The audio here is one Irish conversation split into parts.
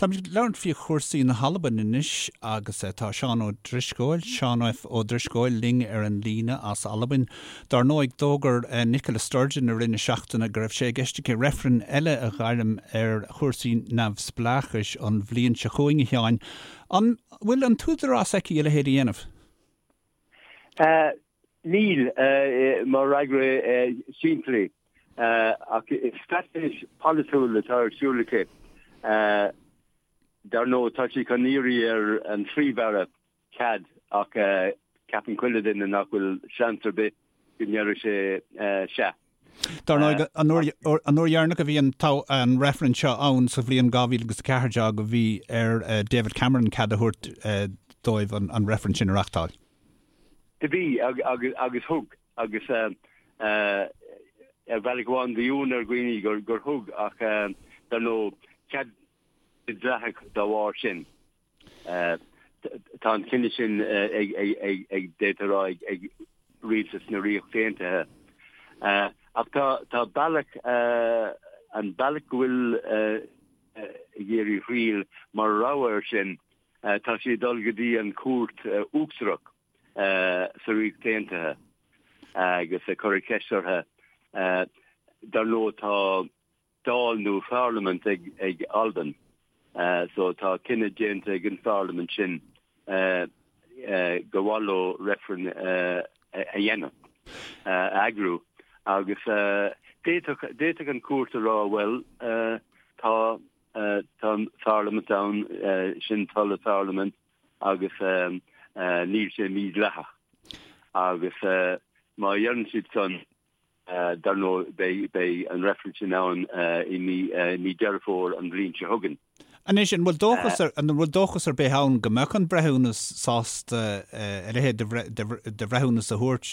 Táimid ag labhairt faoi chúrsaí na hAlban anois agus tá Seán Ó Drisceoil, Seán F. Ó Drisceoil, linn ar an líne as Albain. Dár ndóigh, d'fhógair Nicola Sturgeon i rith na seachtaine go raibh sé i gceist aici reifreann eile a ghairm ar chúrsaí neamhspleáchais an bhliain seo chugainn, a Sheáin. An bhfuil an t-údarás aici a leithéid a dhéanamh? Níl, mar fhreagra simplí. Ach is straitéis pholaitiúil atá ar siúl aici. Dar ndóigh, tá sí chun iarraidh ar an Phríomh-Aire cead ach ceapann chuile duine nach bhfuil seans ar bith go ndéarfaidh sé sea. Dar ndóigh, an uair dheireanach a bhí an reifreann seo ann sa bhliain 2014 bhí ar David Cameron cead a thabhairt dóibh an reifreann sin a reachtáil. Do bhí, agus thug, agus ar bhealach amháin bhí ionadh ar dhaoine gur thug, ach dar ndóigh, cead dleathach dá bharr sin. Tá an cinneadh sin ag, d'fhéadfá a rá, ag rialtas na Ríochta Aontaithe. Ach tá bealach, an bealach go bhfuil ag iarraidh thriail mar rogha air sin, Tá sí ag dul go dtí an Chúirt Uachtarach sa Ríocht Aontaithe agus ag cur ceist orthu. Dar ndóigh tá Dáil nó Pharlaimint ag Albain so tá cinneadh déanta ag an Pharlaimint sin gur mhaith leo reifreann a dhéanamh, a eagrú agus d'fhéadfadh an Chúirt a rá bhuel tá Tá an Pharlaimint ann, sin toil an Pharlaimint agus níl sé mídhleathach. Agus má dheireann siad san, dar ndóigh, beidh an reifreann sin ann i mí Deireadh Fómhair an bhliain seo chugainn. Anois, an bhfuil dóchas, an bhfuil dóchas ar bith ann go mbeadh an breithiúnas sásta a leithéid de bhreithiúnas a thabhairt,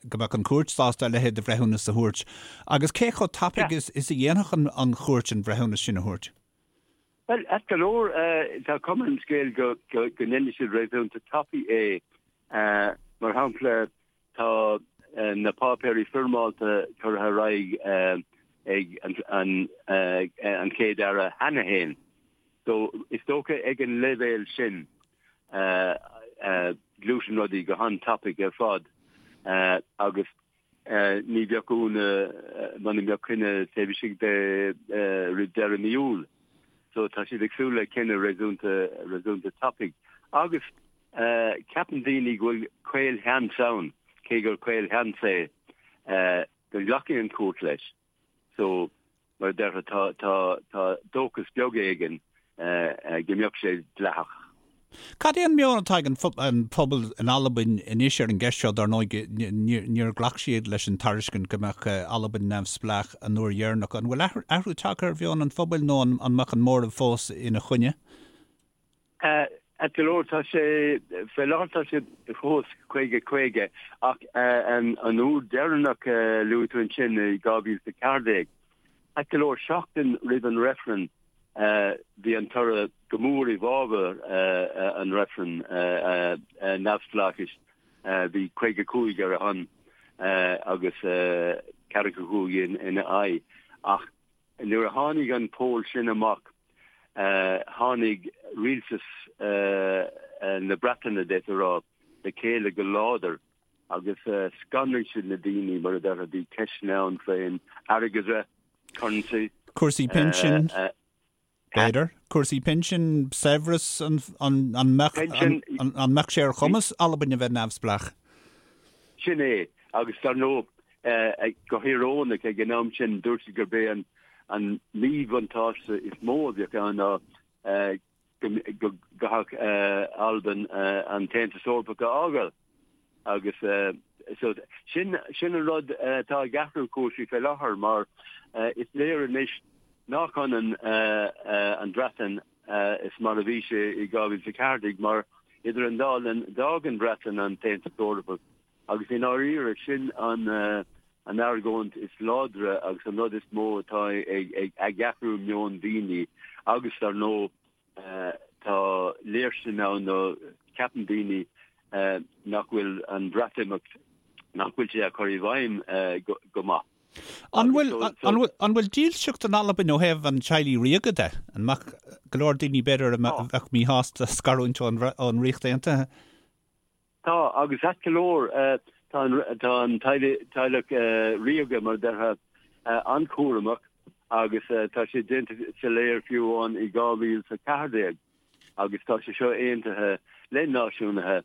go mbeadh an chúirt sásta a leithéid de bhreithiúnas a thabhairt Agus cé chomh tapaidh is a dhéanfadh an chúirt an breithiúnas sin a thabhairt? Bhuel, ait go leor, tá cuma ar an scéal go ndéanfaidh siad réasúnta tapaidh é. Mar shampla, tá na páipéirí foirmeálta curtha ar aghaidh ag an Chéad-Aire cheana féin. So, is dócha ag an leibhéal sin, gluaiseann rudaí go han-tapaidh ar fad agus Ní bheadh ionadh muna mbeadh cinneadh taobh istigh de roimh deireadh mí Iúil. So tá siad ag súil le cinneadh réasúnta réasúnta tapaidh. Agus ceapann daoine go bhfuil caolsheans ann, cé gur caolsheans é, go nglacfaidh an chúirt leis. So, mar a déarfá, tá, tá, tá dóchas beag éigin go mbeadh sé dleathach. Cad é an meon atá ag an phobal in Albain anois ar an gceist seo? Dar ndóigh, níor ghlac siad leis an tairiscint go mbeadh Albain neamhspleách an uair dheireanach. An bhfuil athrú tagtha ar mheon an phobail nó an mbeadh an móramh fós ina choinne? Ait go leor, tá sé, fé láthair tá sé fós 50, 50, ach an uair deireanach a luaigh tú ansin i 2014, ait go leor, seachtain roimh an reifreann, bhí an toradh go mór i bhfabhar an reifrinn neamhspleáchais, bhí 55 ar a shon agus 45 ina aghaidh. Ach nuair a tháinig an poll sin amach, tháinig rialtas na Breataine, d'fhéadfá a rá, le chéile go láidir agus scanraigh siad na daoine, mar a déarfá, bhí ceisteanna ann faoin airgeadra, currency. Cúrsaí pinsin, b'fhéidir? Cúrsaí pinsin, saibhreas, an mbeadh sé ar chumas Albain a bheith neamhspleách? Sin é, agus dar ndóigh, Go híorónach, ag an am sin, dúirt siad gurb é an míbhuntáiste is mó a bheadh ann ná go gcaithfeadh Albain an tAontas Eorpach a fhágáil. Agus so sin sin an rud atá ag athrú cúrsaí fé láthair mar is léir anois nach ionann an Bhreatain is mar a bhí sé i 2014 mar idir an dá linn d'fhág an Bhreatain an tAontas Eorpach Agus i ndáiríre, sin an argóint is láidre agus an rud is mó atá ag athrú meon daoine agus dar ndóigh tá léirstin ann nó ceapann daoine nach bhfuil an Bhreatimeacht, nach bhfuil sé á chur i bhfeidhm go maith. An bhfuil, an bhfuil, an bhfuil dílseacht in Albain ó thaobh an teaghlaigh ríoga de? An mbeadh go leor daoine b'fhéidir a bheadh míshásta scarúint ón, ón Ríocht Aontaithe? Tá, agus ait go leor, tá an, tá an teaghlach ríoga, mar a déarfá, an-chúramach agus tá sé déanta soiléir fiú amháin i 2014 agus tá sé seo aontaithe le náisiúnaithe,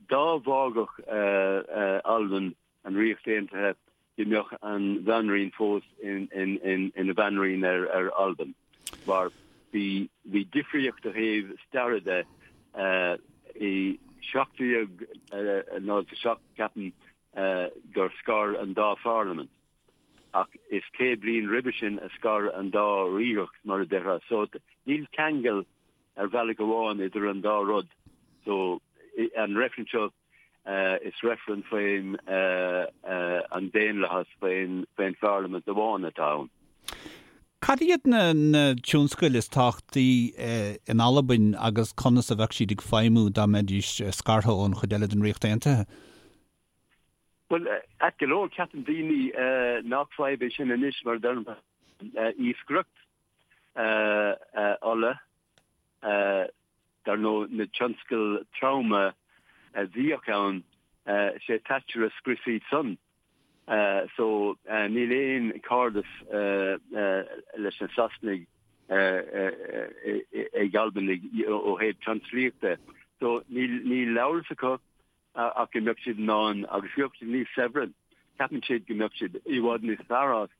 dá bhfágfadh Albain an Ríocht Aontaithe, go mbeadh an Bhanríon fós ina Banríon ar Albain, mar bhí bhí difríocht ó thaobh staire de. I 1707, ceapaim, gur scar an dá pharlaimint, ach is 100 bliain roimhe sin a scar an dá ríocht, mar a déarfá. So níl ceangal ar bhealach amháin idir an dá rud. So an reifreann seo, Is reifreann faoin an daonlathas, faoin pharlaimint amháin atá ann. Cad iad na tionscail is tábhachtaí in Albain agus conas a bheadh siad ag feidhmiú dá mbeidís scartha ón chuid eile den Ríocht Aontaithe? Bhuel, ait go leor, ceapann daoine nach fadhb é sin anois mar a deirim, iascaireacht, ola, Dar ndóigh, na tionscail troma a bhíodh ann, sé Thatcher a scrios iad san. So, níl aon chairdeas leis na Sasanaigh ag Albanaigh ó thaobh tionsclaíochta. So, níl amhras acu ach go mbeadh siad in ann, agus go mbeadh siad níos saibhre, ceapann siad go mbeadh siad i bhfad níos fearr as.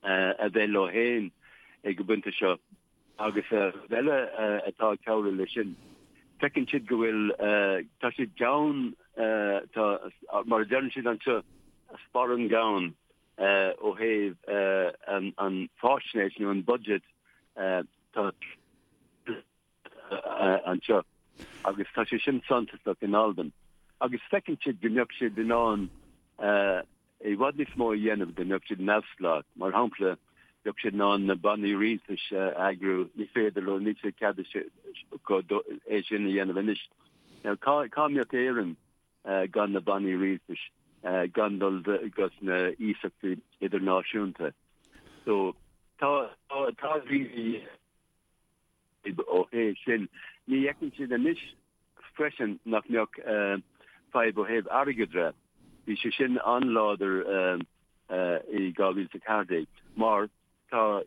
a bheith leo féin ag an bpointe seo agus rud eile atá ag cabhrú leis sin, feiceann siad go bhfuil, tá siad gann, tá, mar a deireann siad anseo, sparán gann ó thaobh an fáisnéis nó an budget, tá. anseo agus tá sé sin suntasach in Albain agus feiceann siad go mbeadh siad in ann i bhfad níos mó a dhéanamh dá mbeadh siad neamhspleách. Mar shampla, bheadh siad in ann na bannaí rialtais a eagrú, ní féidir leo, níl sé cead acu é sin a dhéanamh anois. Now, cá, cá mbeadh Éirinn gan na bannaí rialtais, gan dul go sna hiasachtaí idirnáisiúnta? So, tá, tá, tá daoine Ó thaobh sin, ní fheiceann siad anois freisin nach mbeadh fadhb ó thaobh airgeadra. Bhí sé sin an-láidir i 2014 mar tá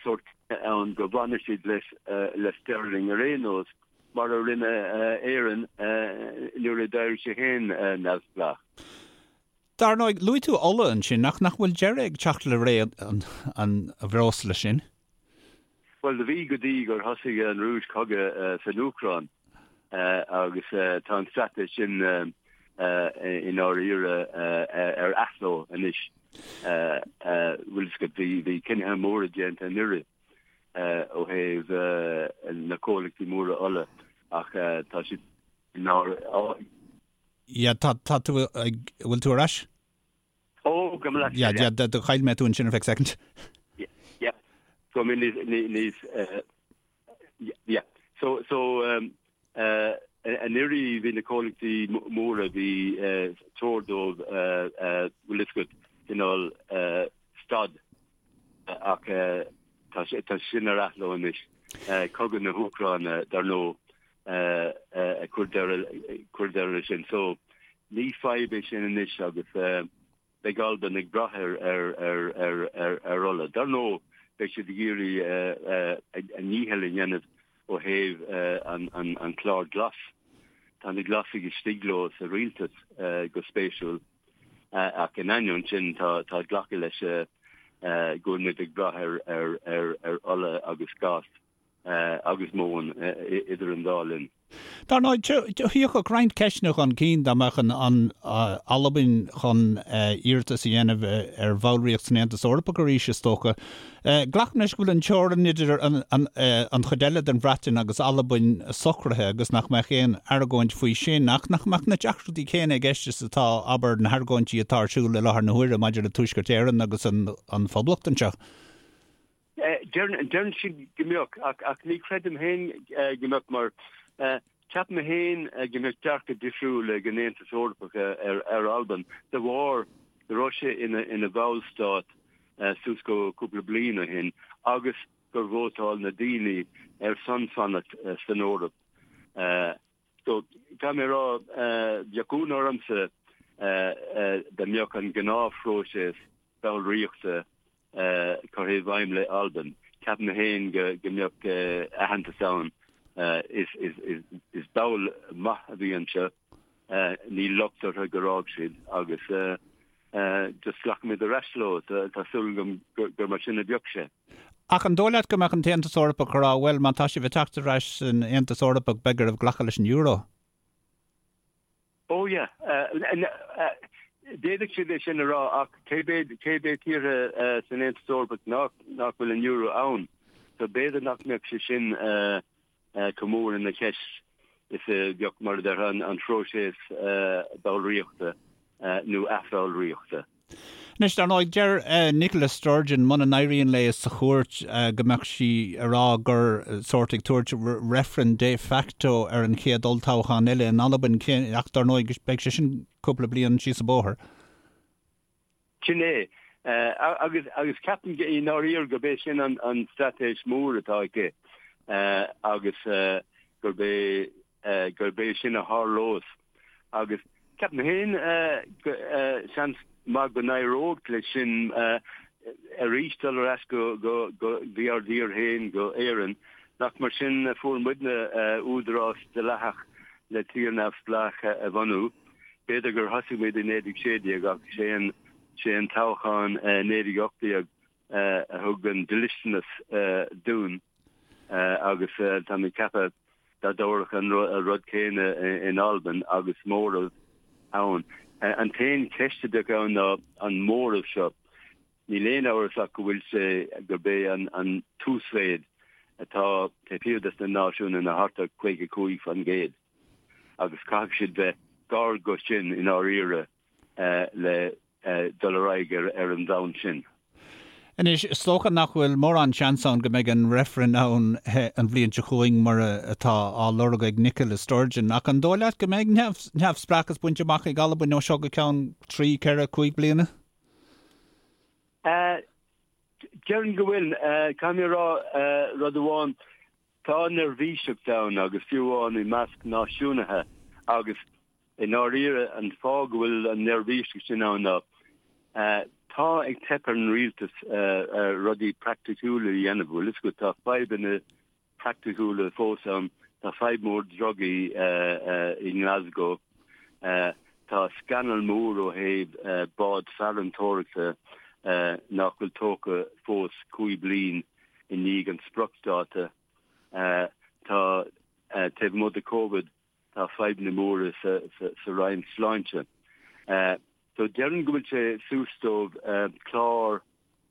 sórt ann go bhfanfaidh siad le sterling ar aon nós mar a rinne Éirinn nuair a d'éirigh sí féin neamhspleách. Dar ndóigh, luaigh tú ola ansin, ach nach bhfuil deireadh ag teacht le ré an bhreosla sin? Bhuel, do bhí go dtí gur thosaigh an Rúis cogadh san Úcráin agus tá an straitéis sin i ndáiríre ar athló anois. Bhfuil fhios agat, bhí cinnithe móra déanta anuraidh ó thaobh na comhlachtaí móra ola ach tá siad i ndáiríre. Yeah, tá tú ag, bhfuil tú ar ais? Ó, go mba leat Yeah, yeah, do chaill mé tú ansin ar feadh second. Yeah, yeah. So, I mean, níos, yeah. So, so, um, uh, anuraidh bhí na comhlachtaí móra bhí uh, treoir dóibh uh, uh, bhfuil fhios agat cineál uh, stad ach uh, tá, tá sin ar athló anois. Uh, cogadh na hÚcráine dar ndóigh uh, uh, ag cur deireadh cur deireadh leis sin. So, Ní fadhb é sin anois agus beidh Albain ag brath ar ola. Dar ndóigh, beidh siad ag iarraidh a ndícheall a dhéanamh ó thaobh an clár glas. Tá na Glasaigh istigh leo sa rialtas, go spéisiúil, ach in ainneoin sin tá glacadh leis go bhfuil muid ag brath ar ola agus gás. agus móin idir an dá linn. Dar ndóigh, thiocfadh roinnt ceisteanna chun cinn dá mbeadh an Albain chun iarratas a dhéanamh ar bhallraíocht san Aontas Eorpach arís, is dócha. Glacaim leis go bhfuil an teorainn idir an chuid eile den Bhreatain agus Albain socraithe agus nach mbeadh aon argóint faoi sin, ach nach mbeadh na deacrachtaí céanna i gceist is atá, abair, na hargóintí atá ar siúl i láthair na huaire maidir le Tuaisceart Éireann agus an Phoblacht anseo. Deireann siad go mbeadh, ach ní chreidim féin go mbeadh mar ceapaim féin go mbeadh dearcadh difriúil ag an Aontas Eorpach ar Albain de bharr. go raibh sé ina bhallstát suas go cúpla bliain ó shin agus gur vótáil na daoine ar son fanacht san Eoraip. So, caithfidh mé a rá, bheadh ionadh ormsa dá mbeadh an gnáthphróiseas ballraíochta curtha i bhfeidhm le Albain. Ceapaim féin go mbeadh aitheantas ann. Is ball maith a bhí anseo. Níl locht orthu gur fhág siad agus just glacfaimid ar ais leo. Tá súil agam gur mar sin a bheadh sé. Ach an dóigh leat go mbeadh an tAontas Eorpach ag rá, bhuel, má tá sibh ag teacht ar ais san Aontas Eorpach, beidh oraibh glacadh leis an euro? Oh yeah. D'fhéadfadh siad é sin a rá ach cé mhéad tíortha san Aontas Eorpach nach bhfuil an euro ann? So b'fhéidir nach mbeadh sé sin chomh mór ina cheist is a bheadh, mar a déarfá, an phróiseas ballraíochta nó athbhallraíochta. Anois, dar ndóigh, deir Nicola Sturgeon muna n-éiríonn léi sa chúirt go mbeadh sí ag rá gur sórt ag tabhairt reifreann de facto ar an chéad olltoghchán eile in Albain, ach dar ndóigh beidh sé sin cúpla bliain síos an bóthar. Sin é. Agus agus ceapaim i ndáiríre gurb é sin an straitéis mór atá aici agus gurb é gurb é sin a tharlós agus ceapaim féin seans maith go n-éireodh leis sin arís dul ar ais go dtí ár dtír féin, go Éirinn, nach mar sin a fuair muidne údarás dleathach le tír neamhspleách a bhunú. B'fhéidir gur thosaigh muid i 1916 ach sé an toghchán 1918 a thug an dlisteanas dúinn agus tá mé ag ceapadh dá dtabharfadh an rud céanna in Albain agus móramh ann. An t-aon cheist a bheadh ann ná an móramh seo. Níl aon amhras ach go bhfuil sé gurb é an t-uasmhéid atá taobh thiar des na náisiúnaigh ná thart ar 55% agus caithfidh siad bheith gar go sin i ndáiríre le dul ar aghaidh ar an bhonn sin. Anois, is dócha nach bhfuil mórán seans ann go mbeidh an reifreann ann an bhliain seo chugainn mar atá á lorg ag Nicola Sturgeon, ach an dóigh leat go mbeidh neamhspleáchas bainte amach ag Albain ó seo go ceann trí, ceithre, cúig bliana? Déarfainn go bhfuil. Caithfidh mé a rá rud amháin, tá neirbhíseacht ann agus fiú amháin i measc náisiúnaithe agus I ndáiríre, an fáth go bhfuil an neirbhíseacht sin ann ná tá ag teip ar an rialtas rudaí praiticiúla a dhéanamh. Bhfuil fhios agat, tá fadhbanna praiticiúla fós ann. Tá fadhb mór drugaí i nGlasgow. Tá scannal mór ó thaobh bád farantóireachta nach bhfuil tógtha fós cúig bliain i ndiaidh an spriocdháta. Tá, taobh amuigh de Covid, Tá fadhbanna móra sa Roinn Sláinte. So déarfainn go bhfuil sé suas dóibh clár,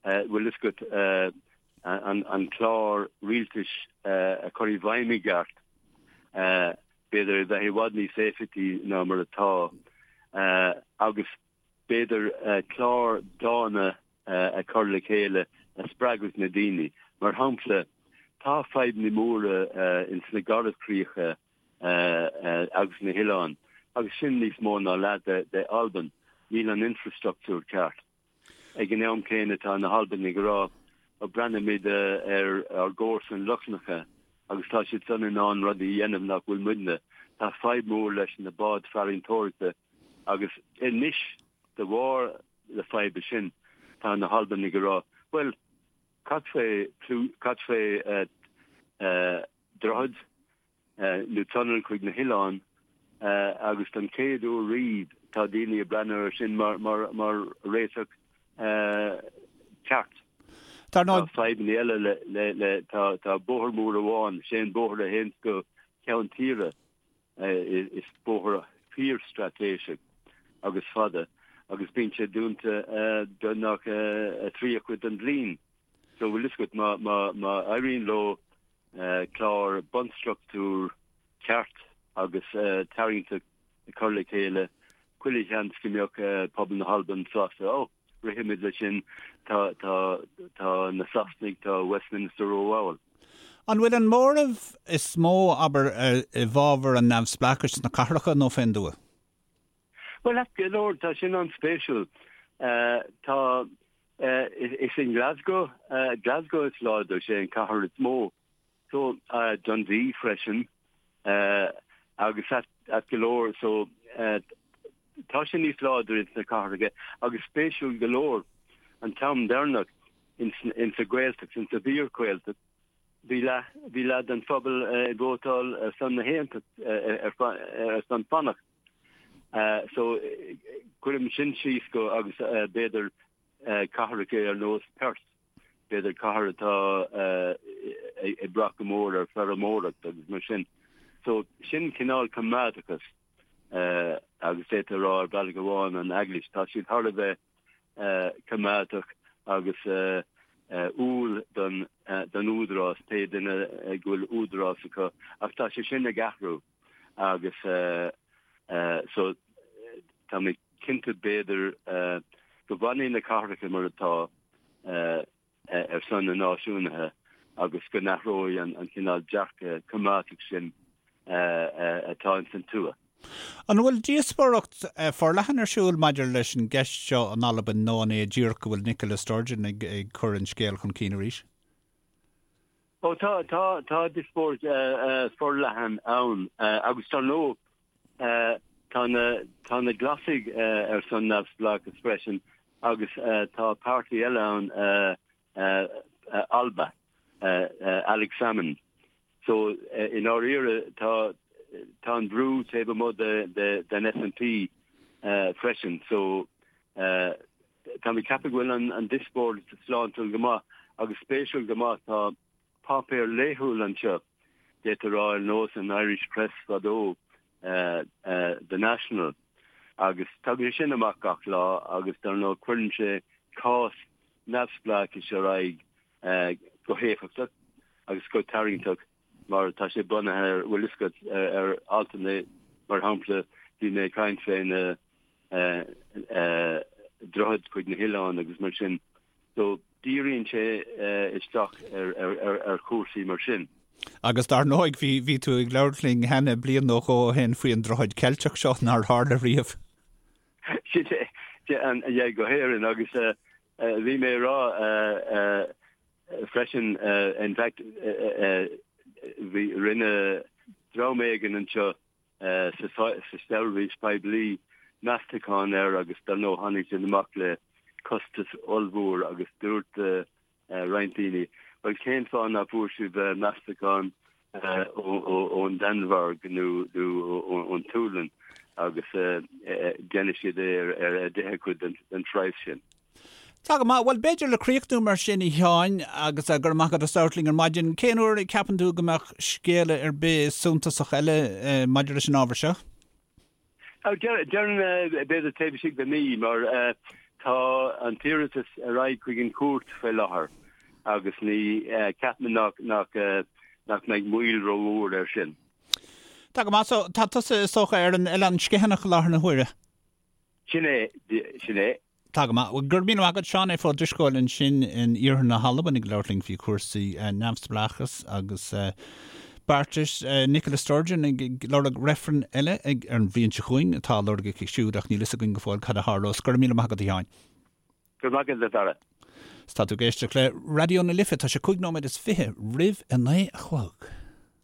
bhfuil fhios agat, an clár rialtais a chur i bhfeidhm i gceart, b'fhéidir a bheith i bhfad níos éifeachtaí ná mar atá agus b'fhéidir clár dána a chur le chéile a spreagfadh na daoine. Mar shampla, tá fadhbanna móra ins na Garbhchríocha agus na hoileáin, agus sin níos mó ná leath de Albain. Níl an infreastruchtúr ceart. Ag an am céanna tá na hAlbanaigh ag rá, ó breathnaímid ar ár gcomharsain Lochlannacha agus tá siad san in ann rudaí a dhéanamh nach bhfuil muidne. Tá fadhb mhór leis na báid farantóireachta agus anois de bharr na faidhbe sin tá na hAlbanaigh ag rá, bhuel, cad fé, cad fé droichead nó tunnel chuig na hoileáin agus don chéad uair riamh tá daoine ag breathnú air sin mar réiteach ceart. Tá fadhbanna eile le, tá bóthar mór amháin, sé an bóthar a théann go ceann tíre, is bóthar fíorstraitéiseach agus fada agus bíonn sé dúnta beagnach a thríú cuid den bhliain. So bhfuil fhios agat, má éiríonn leo clár bunstruchtúr ceart agus tarraingteach a chur le chéile, chuile sheans go mbeadh pobal na hAlban sásta, oh, rithfimid leis sin, tá, tá, tá na Sasanaigh, tá Westminster rómhall. An bhfuil an móramh is mó, abair, i bhfabhar an neamhspleáchais sna cathracha nó fén dtuath? Bhuel, go leor, tá sin an-spéisiúil. Tá, is in Glasgow, Glasgow is láidir, sé an cathair is mó. So, Dundee freisin agus ait go leor, so tá sé níos láidre ins na cathracha agus spéisiúil go leor an t-am deireanach ins ins an Ghaeltacht, ins an bhfíor-Ghaeltacht, bhí leath, bhí leath den phobal ag vótáil ar son na haontacht, ar son fanacht. So cuirim sin síos go agus b'fhéidir cathracha ar nós Perth, b'fhéidir cathair atá ag brath go mór ar feirmeoireacht agus mar sin. So sin cineál coimeádachas agus d'fhéadfá a rá ar bhealach amháin an Eaglais, tá siad thar a bheith coimeádach agus umhal don don údarás, pé duine go bhfuil údarás acu ach tá sé sin ag athrú agus so tá mé cinnte b'fhéidir go bhfanfaidh na cathracha mar atá ar son na náisiúnaithe agus go n-athróidh an cineál dearcadh coimeádach sin atá ins an tuath. An bhfuil díospóireacht forleathan ar siúl maidir leis an gceist seo in Albain nó an é díreach go bhfuil Nicola Sturgeon ag cur an scéil chun cinn arís? Ó tá, tá, tá díospóireacht forleathan ann agus dar ndóigh tá na, tá na Glasaigh ar son neamhspleáchas freisin agus tá páirtí eile ann Alba, Alex Salmond. So i ndáiríre tá, tá an brú taobh amuigh de, de, den SNP freisin. So Tá mé ag ceapadh go bhfuil an díospóireacht sláintiúil go maith agus spéisiúil go maith. Tá páipéar laethúil anseo, d'fhéadfá a rá ar nós an Irish Press fadó, The National, agus tagann sé sin amach gach lá agus dar ndóigh cuireann sé cás neamhspleáchais ar aghaidh go héifeachtach agus go tarraingteach mar tá sé bunaithe ar, bhfuil fhios agat, ar altanna, mar shampla, bhí mé ag caint fé na droichid chuig na hoileáin agus mar sin. So díríonn sé isteach ar chúrsaí mar sin. Agus dar ndóigh, bhí, bhí tú ag labhairt linn cheana bliain nó dhó ó shin faoi an droichead Ceilteach seo nár tharla riamh. Sin é, yeah, go hÉirinn agus bhí mé ag rá freisin, in fact, bhí, rinne dream éigin anseo sa seirbhís poiblí meastachán air agus dar ndóigh tháinig siad amach le costas ollmhór agus dúirt roinnt daoine, bhuel cén fáth nach bhfuair sibh meastachán ón Danmhairg nó ón tSualainn agus déanfaidh siad é ar an deichiú cuid den phraghas sin. Tá go maith. Bhuel, b'fhéidir le críochnú mar sin, a Sheáin, agus go raibh maith agat as labhairt linn ar maidin, cén uair a ceapann tú go mbeadh scéala ar bith suntasach eile maidir leis an ábhar seo? Déarfainn b'fhéidir taobh istigh de mhí mar tá an t-iarratas ar aghaidh chuig an chúirt faoi láthair agus ní ceapaim nach nach mbeidh moill rómhór air sin. Tá go maith. So, tá tusa is dócha ar an Oileán Sgitheanach i láthair na huaire? Sin é, sin é. Tá go maith. Go raibh míle maith agat, Seán F. Ó Drisceoil ansin in iarthar na hAlban ag labhairt linn faoi chúrsaí neamhspleáchas agus beartais. Nicola Sturgeon ag lorg reifreann eile ag ar an bhliain seo chugainn atá á lorg aici siúd ach níl fhios againn go fóill cad a tharlós. Go raibh míle maith agat, a Sheáin. Go raibh maith agat, a Dhara. Tá tú ag éisteacht le Raidió na Life, tá sé 25 nóiméad roimh a 9 a chlog.